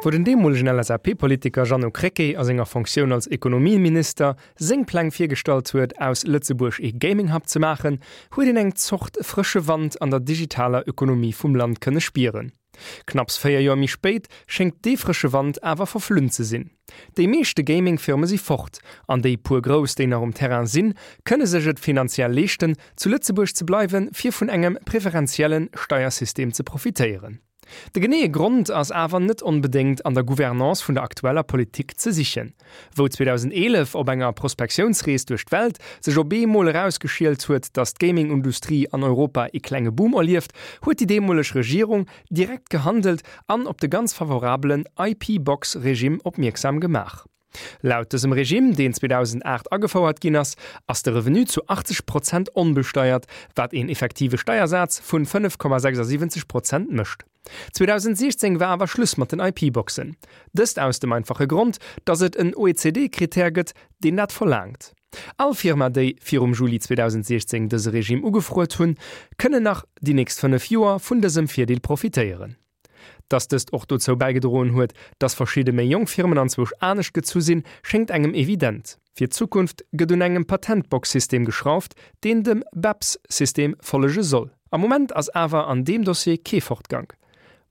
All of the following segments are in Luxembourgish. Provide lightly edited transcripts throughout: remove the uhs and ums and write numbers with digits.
Wou den deemolegen LSAP-Politiker Jeannot Krecké a senger Fonctioun als Ekonomieminister seng Pläng virgestallt huet, aus Lëtzebuerg ee Gaming-Hub ze maachen, huet een eng Zort frësche Wand an der digitaler Ökonomie vum Land kënne spieren. Knapps 4 Joer méi spéit schéngt dee frësche Wand awer verflunn ze sinn. Déi meeschte Gaming-Firme si fort, an déi puer grouss, déi nach um Terrain sinn, kënne sech et finanziell leeschten, zu Lëtzebuerg ze bleiwen, fir vun engem preferentielle Steiersystem ze profitéieren. De geneeë Grond ass awer net onbedéngt an der Gouvernance vun der aktueller Politik ze sichen. Wou 2011 op enger Prospektiounsrees duerch d'Welt sech op eemol erausgeschielt huet, datt d'Gaming-Industrie an Europa ee klenge Boom erlieft, huet déi deemoleg Regierung direkt gehandelt an op de ganz favorabelen IP-Box-Regime opmierksam gemaach. Laut dësem Regime, deen 2008 agefouert ginn ass, ass de Revenu zu 80 Prozent onbesteiert, wat een effektive Steiersaz vun 5,76 Prozent mécht. 2016 war awer Schluss mat den IP-Boxen. Dëst aus dem einfache Grond, datt et en OECD-Kritär gëtt, deen dat verlaangt. All Firma, déi virum Juli 2016 dëse Regime ugefruet hunn, kënnen nach déi nächst 5 Joer vun dësem Virdeel profitéieren. Dass dëst och dozou bäigedroen huet, dass verschidde méi jonk Firmen anzwousch anescht gezu sinn, schéngt engem evident. Fir d'Zukunft gëtt un engem Patentbox-System geschrauft, deen dem BEPS-System follege soll. Am Moment ass awer an deem Dossier kee Fortgank.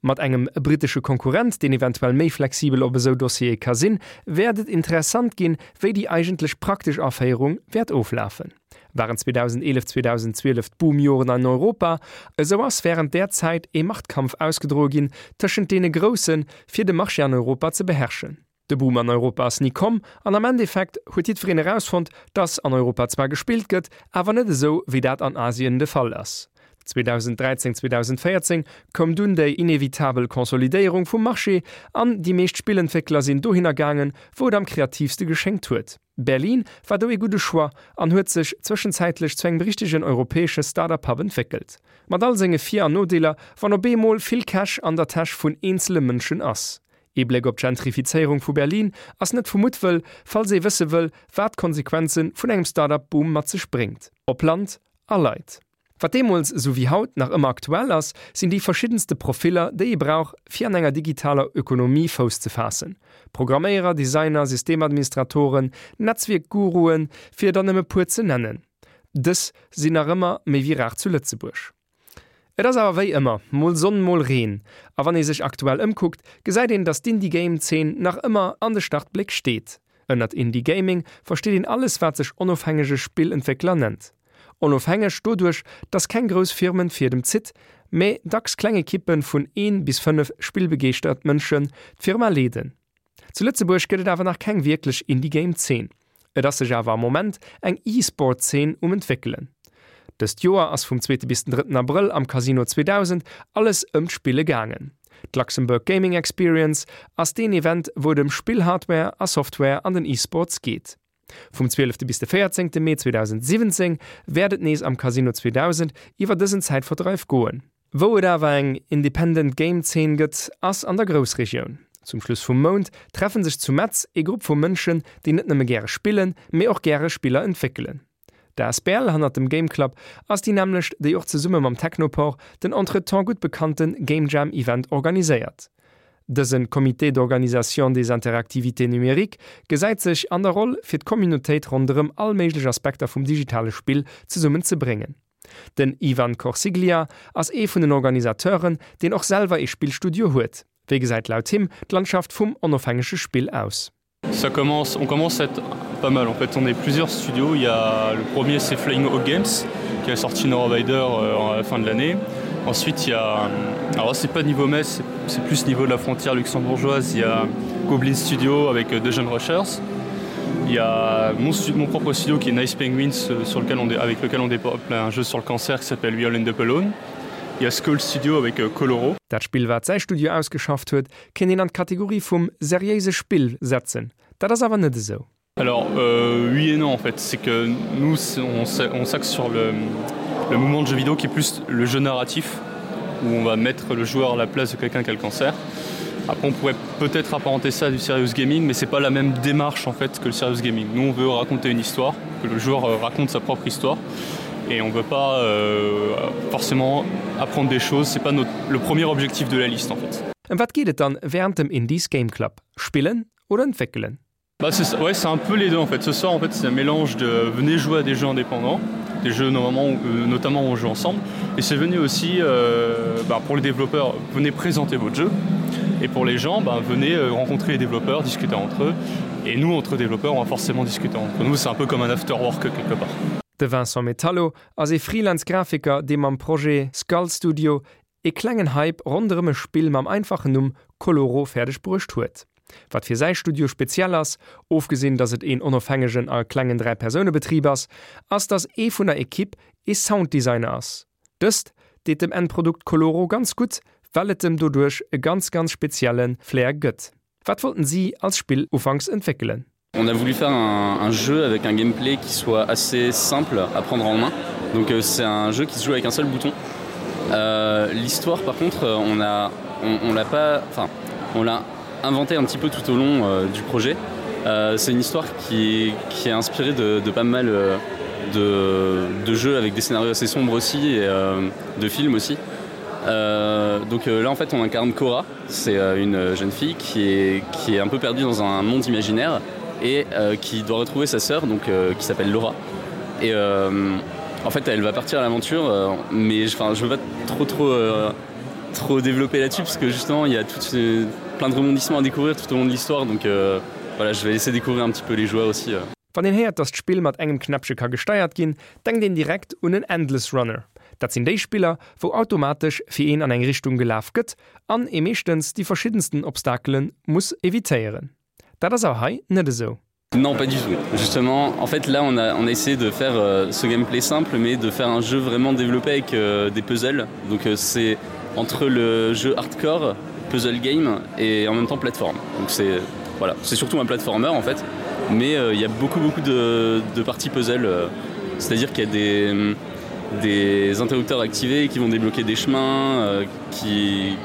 Mat engem brittesche Konkurrent, deen eventuell méi flexibel op esou Dossiere ka sinn, wäert et interessant ginn, wéi déi eigentlech praktesch Aféierung wäert oflafen. Waren 2011, 2012 d'Boomjoren an Europa, esou ass wärend där Zäit ee Machtkampf ausgedroe ginn tëschent deene Groussen, fir de Marché an Europa ze beherrschen. De Boom an Europa ass ni komm an am Endeffekt huet jiddwereen erausfonnt, dass an Europa zwar gespillt gëtt, awer net esou wéi dat an Asien de Fall ass. 2013, 2014 koum dunn déi inevitabel Consolidéierung vum Marché an déi meescht Spillentwéckler sinn dohinner gaangen, wou et am kreatiivste geschéngt huet. Berlin war do ee gudde Choix an huet sech zwëschenzäitlech zu engem richtegen europäesche Startup-Hub entwéckelt. Mat all senge Vir an Nodeeler, wann op eemol vill Cash an der Täsch vun eenzele Mënschen ass. Ee Bléck op d'Gentrifizéierung vu Berlin ass net vu Muttwëll, falls ee wësse wëll, wat d'Konsequenze vun engem Startup-Boom mat sech bréngt, op Land a Leit. Wat deemools esou wéi haut nach ëmmer aktuell ass, sinn déi verschiddenste Profiller, déi ee brauch, fir an enger digitaler Ökonomie Fouss ze faassen, Programméierer, Designer, Systemadministratoren, Netzwierkguruen, fir der nëmme puer ze nennen. Dës sinn nach ëmmer méi wéi rar zu Lëtzebuerg. Et ass awer wéi ëmmer, mol Sonn, mol Reen. A wann ee sech aktuell ëmkuckt, gesäit een, datt d'Indie-Game-Zeen nach ëmmer an de Startbléck steet. Ënnert Indie-Gaming versteet een alles, wat sech onofhängege Spillentwéckler nennt. Onofhängeg doduerch, dass keng grouss Firmen d'Fiedem zitt, mä dacks kleng Ekippe vun een bis 5 spillbegeeschtert Mënschen d'Firma leeden. Zu Lëtzebuerg gëtt et awer nach keng wierklech Indie-Game-Zeen. Et ass sech awer am Moment eng E-Sport-Zeen um entwéckelen. Dëst Joer ass vum zweete bis den drëtten Abrëll am Casino 2000 alles ëm d'Spille gaangen. D'Luxembourg Gaming Experience ass deen Event, wou et ëm Spill-Hardware a Software an den E-Sports geet. Vum 12 bis de 14 Mee 2017 wäert et nees am Casino 2000 iwwer dësen Zäitverdreif goen. Wou et awer eng Independent Game Zeen gëtt, ass an der Groussregioun. Zum Schluss vum Mount treffen sech zu Metz ee Grupp vu Mënschen, déi net nëmme gäre spillen, mee och gäre Spiller entwéckelen. D'asbl hannert dem Game Club ass déi nämmlecht, déi och zesumme mam Technopore den entretemps gutt bekannte Game Jam Event organiséiert. Dëse Comité d'organisation des interactivités numériques gesäit sech an der Roll, fir d'Communautéit ronderëm all méiglech Aspekter vum digitale Spill zesummen ze bréngen. Den Ivan Corsiglia ass ee vun den Organisateuren, deen och selwer ee Spillstudio huet. Wéi gesäit laut him d'Landschaft vum onofhängege Spill aus? Ça commence on commence à être pas mal en fait on est plusieurs studios il ya le premier c'est Flying Hawk Games qui a sorti No Rider euh, à la fin de l'année ensuite il ya alors c'est pas niveau Metz c'est plus niveau de la frontière luxembourgeoise il ya Goblin Studio avec euh, deux jeunes rushers il ya mon, mon propre studio qui est Nice Penguins euh, sur lequel on avec lequel on développe un jeu sur le cancer qui s'appelle We All End Up Alone il ya Skull Studio avec euh, Coloro. Dat Spill wat säi Studio ausgeschafft huet, kéint een an d'Kategorie vum seriéise Spill setzen. Dat ass awer net esou. Alors euh, oui et non en fait, c'est que nous on, on s'axe sur le, le mouvement de jeu vidéo qui est plus le jeu narratif où on va mettre le joueur à la place de quelqu'un qui a le cancer. Après on pourrait peut-être apparenter ça à du serious gaming, mais c'est pas la même démarche en fait que le serious gaming. Nous on veut raconter une histoire, que le joueur euh, raconte sa propre histoire et on veut pas euh, forcément apprendre des choses, c'est pas notre, le premier objectif de la liste en fait. Ëm wat geet et dann wärend dem Indies Game Club? Spillen oder entwéckelen? Bah, c'est ouais, c'est un peu les deux en fait. Ce soir en fait c'est un mélange de venez jouer à des jeux indépendants, des jeux normalement euh, notamment on joue ensemble et c'est venu aussi euh, bah, pour les développeurs venez présenter votre jeu et pour les gens bah, venez euh, rencontrer les développeurs, discuter entre eux et nous entre développeurs on va forcément discuter entre nous c'est un peu comme un after work quelque part. De Vincent Metallo ass ee Freelance-Grafiker, dee mam Projet Skull Studio ee klengen Hype ronderëm e Spill mam einfachen Numm Koloro fäerdeg bruecht huet. Wat fir säi Studio speziell ass, ofgesinn datt et een onofhängegen a klengen 3 Persoune Betrib ass, ass datt ee vun der Ekipp ee Sounddesigner ass. Dëst deet dem Endprodukt Koloro ganz gutt, well et em doduerch e ganz ganz spezielle Flair gëtt. Wat wollten si als Spill ufanks entwéckelen? On a voulu faire un, un jeu avec un gameplay qui soit assez simple à prendre en main. Donc euh, c'est un jeu qui se joue avec un seul bouton. Euh, L'histoire par contre euh, on a on, on l'a pas enfin on l'a inventé un petit peu tout au long euh, du projet. Euh, c'est une histoire qui, qui est inspirée de, de pas mal euh, de, de jeux avec des scénarios assez sombres aussi et euh, de films aussi. Euh, donc euh, là en fait on incarne Cora, c'est euh, une jeune fille qui est, qui est un peu perdue dans un monde imaginaire et euh, qui doit retrouver sa sœur donc euh, qui s'appelle Laura. Et euh, en fait elle va partir à l'aventure euh, mais enfin je veux pas trop trop euh, trop développer là-dessus parce que justement il y a tout euh, plein de rebondissements à découvrir tout au long de l'histoire donc euh, voilà je vais laisser découvrir un petit peu les joueurs aussi euh. Wann een héiert, dass d'Spill mat engem Knäppche ka gesteiert ginn, denkt een direkt un en Endless Runner. Dat sinn déi Spiller, wou automatesch fir een an eng Richtung gelaf gëtt an ee meeschtens déi verschiddensten Obstakele muss evitéieren. Dat ass awer hei net esou. Non pas du tout. Justement, en fait là on a, on a essayé de faire euh, ce gameplay simple mais de faire un jeu vraiment développé avec euh, des puzzles. Donc euh, c'est entre le jeu hardcore, puzzle game et en même temps plateforme. Donc c'est voilà, c'est surtout un platformer en fait mais euh, il euh, y a beaucoup beaucoup de, de parties puzzle euh, c'est à dire qu'il y a des, des interrupteurs activés qui vont débloquer des chemins euh, qui,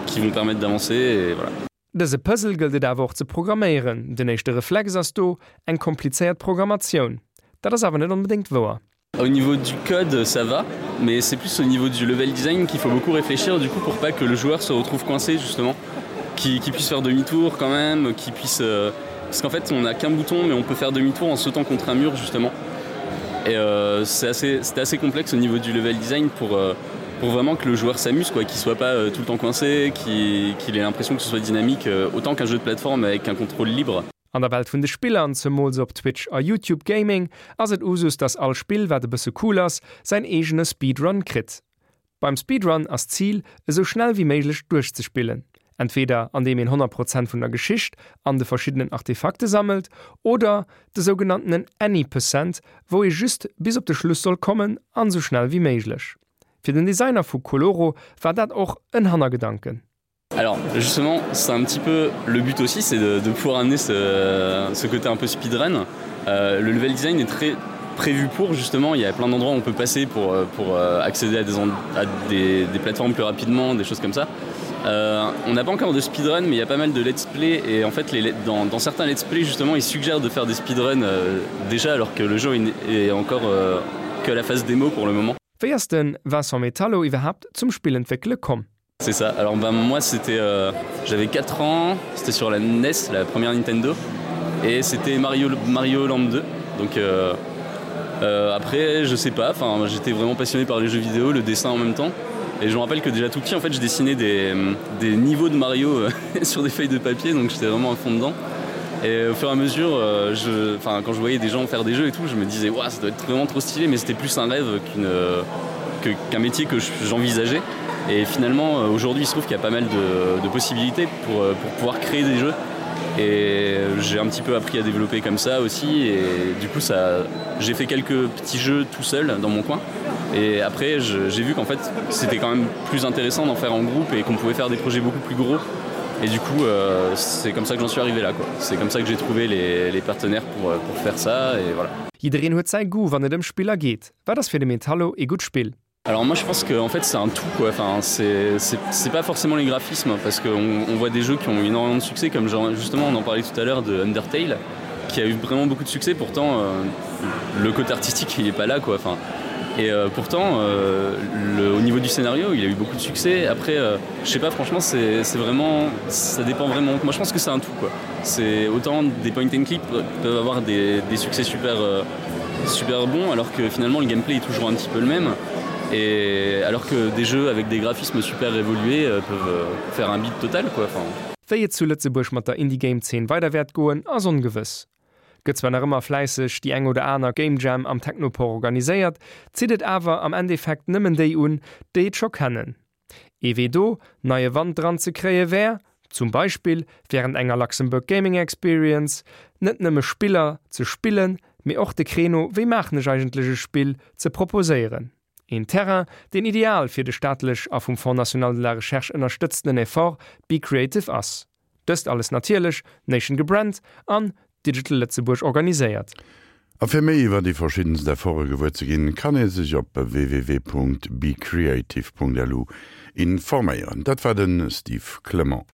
qui vont permettre d'avancer et voilà. Dëse Puzzle gëllt et awer och ze programméieren. Den éischte Reflex ass do eng komplizéiert Programmatioun. Dat ass awer net onbedéngt wouer. Au niveau du code ça va, mais c'est plus au niveau du level design qu'il faut beaucoup réfléchir du coup pour pas que le joueur se retrouve coincé justement, qu'il qu puisse faire demi-tour quand même, qu'il puisse euh, parce qu'en fait on n'a qu'un bouton mais on peut faire demi-tour en sautant contre un mur justement. Et euh, c'est assez, assez complexe au niveau du level design pour, euh, pour vraiment que le joueur s'amuse quoi, qu'il soit pas euh, tout le temps coincé, qu'il qu ait l'impression que ce soit dynamique euh, autant qu'un jeu de plateforme avec un contrôle libre. An der Welt vun de Spiller, an zemools op Twitch a YouTube Gaming, ass et Usus, dass all Spill, wat e bësse cool ass, säin eegene Speedrun kritt. Beim Speedrun ass d'Zil, esou schnell wéi méiglech duerchzespillen. Entweder an deem een 100 Prozent vun der Geschicht an de verschiddenen Artefakte sammelt, oder de sougenanntenen Any Percent, wou ee just bis op de Schluss soll kommen an esou schnell wéi méiglech. Fir den Designer vu Koloro war dat och en Hannergedanken. Alors justement c'est un petit peu le but aussi c'est de, de pouvoir amener ce, ce côté un peu speedrun. Euh, le level design est très prévu pour justement il y a plein d'endroits où on peut passer pour, euh, pour euh, accéder à des, à des, des plateformes plus rapidement des choses comme ça. Euh, on n'a pas encore de speedrun mais il y a pas mal de let's play et en fait les, dans, dans certains let's play justement ils suggèrent de faire des speedruns euh, déjà alors que le jeu est encore euh, que la phase démo pour le moment. Wéi ass de Vincent Metallo iwwerhaapt zum Spillentwéckele komm? C'est ça. Alors ben moi c'était euh, j'avais 4 ans, c'était sur la NES, la première Nintendo et c'était Mario Mario Land 2. Donc euh, euh, après je sais pas, enfin j'étais vraiment passionné par les jeux vidéo, le dessin en même temps. Et je me rappelle que déjà tout petit en fait je dessinais des, des niveaux de Mario euh, sur des feuilles de papier, donc j'étais vraiment à fond dedans. Et au fur et à mesure euh, je, quand je voyais des gens faire des jeux et tout, je me disais ouais, ça doit être vraiment trop stylé, mais c'était plus un rêve qu'une euh, qu'un métier que j'envisageais. Et finalement euh, aujourd'hui il se trouve qu'il y a pas mal de, de possibilités pour, euh, pour pouvoir créer des jeux. Et j'ai un petit peu appris à développer comme ça aussi et du coup ça j'ai fait quelques petits jeux tout seul dans mon coin. Et après j'ai vu qu'en fait c'était quand même plus intéressant d'en faire en groupe et qu'on pouvait faire des projets beaucoup plus gros. Et du coup euh, c'est comme ça que j'en suis arrivé là quoi. C'est comme ça que j'ai trouvé les, les partenaires pour, euh, pour faire ça et voilà. Jiddereen huet säi Goût wann et ëm Spiller geet. Wat ass fir de Metallo ee gutt Spill? Alors moi je pense que en fait c'est un tout quoi enfin c'est pas forcément les graphismes parce qu'on on voit des jeux qui ont énormément de succès comme genre, justement on en parlait tout à l'heure de Undertale qui a eu vraiment beaucoup de succès pourtant euh, le côté artistique il est pas là quoi enfin. Et euh, pourtant euh, le, au niveau du scénario il a eu beaucoup de succès après euh, je sais pas franchement c'est vraiment ça dépend vraiment moi je pense que c'est un tout quoi c'est autant des point and click peuvent avoir des, des succès super euh, super bons alors que finalement le gameplay est toujours un petit peu le même et alors que des jeux avec des graphismes super évolués euh, peuvent euh, faire un beat total quoi enfin Wéi et zu Lëtzebuerg mat der Indie-Game-Zeen weider wäert goen, ass ongewëss. Gëtt zwar nach ëmmer fläisseg déi eng oder aner Game Jam am Technopore organiséiert, zitt et awer am Endeffekt nëmmen déi un, déi et scho kennen. Ee Wee do neie Wand dran ze kréie wär, zum Beispill wärend enger Luxembourg Gaming Experience, net nëmme Spiller ze spillen, mee och de Créneau Wéi maachen ech eigentlech e Spill? ze proposéieren. Een Terrain, deen ideal fir de staatlech a vum Fonds national de la recherche ënnerstëtztenen Effort Be Creative ass. Dëst alles natierlech Nation gebrannt an Digital Lëtzebuerg organiséiert. A fir méi iwwer déi verschiddenst Efforte gewuer ze ginn, kann ee sech op www.becreative.lu informéieren. Dat war de Steve Clement.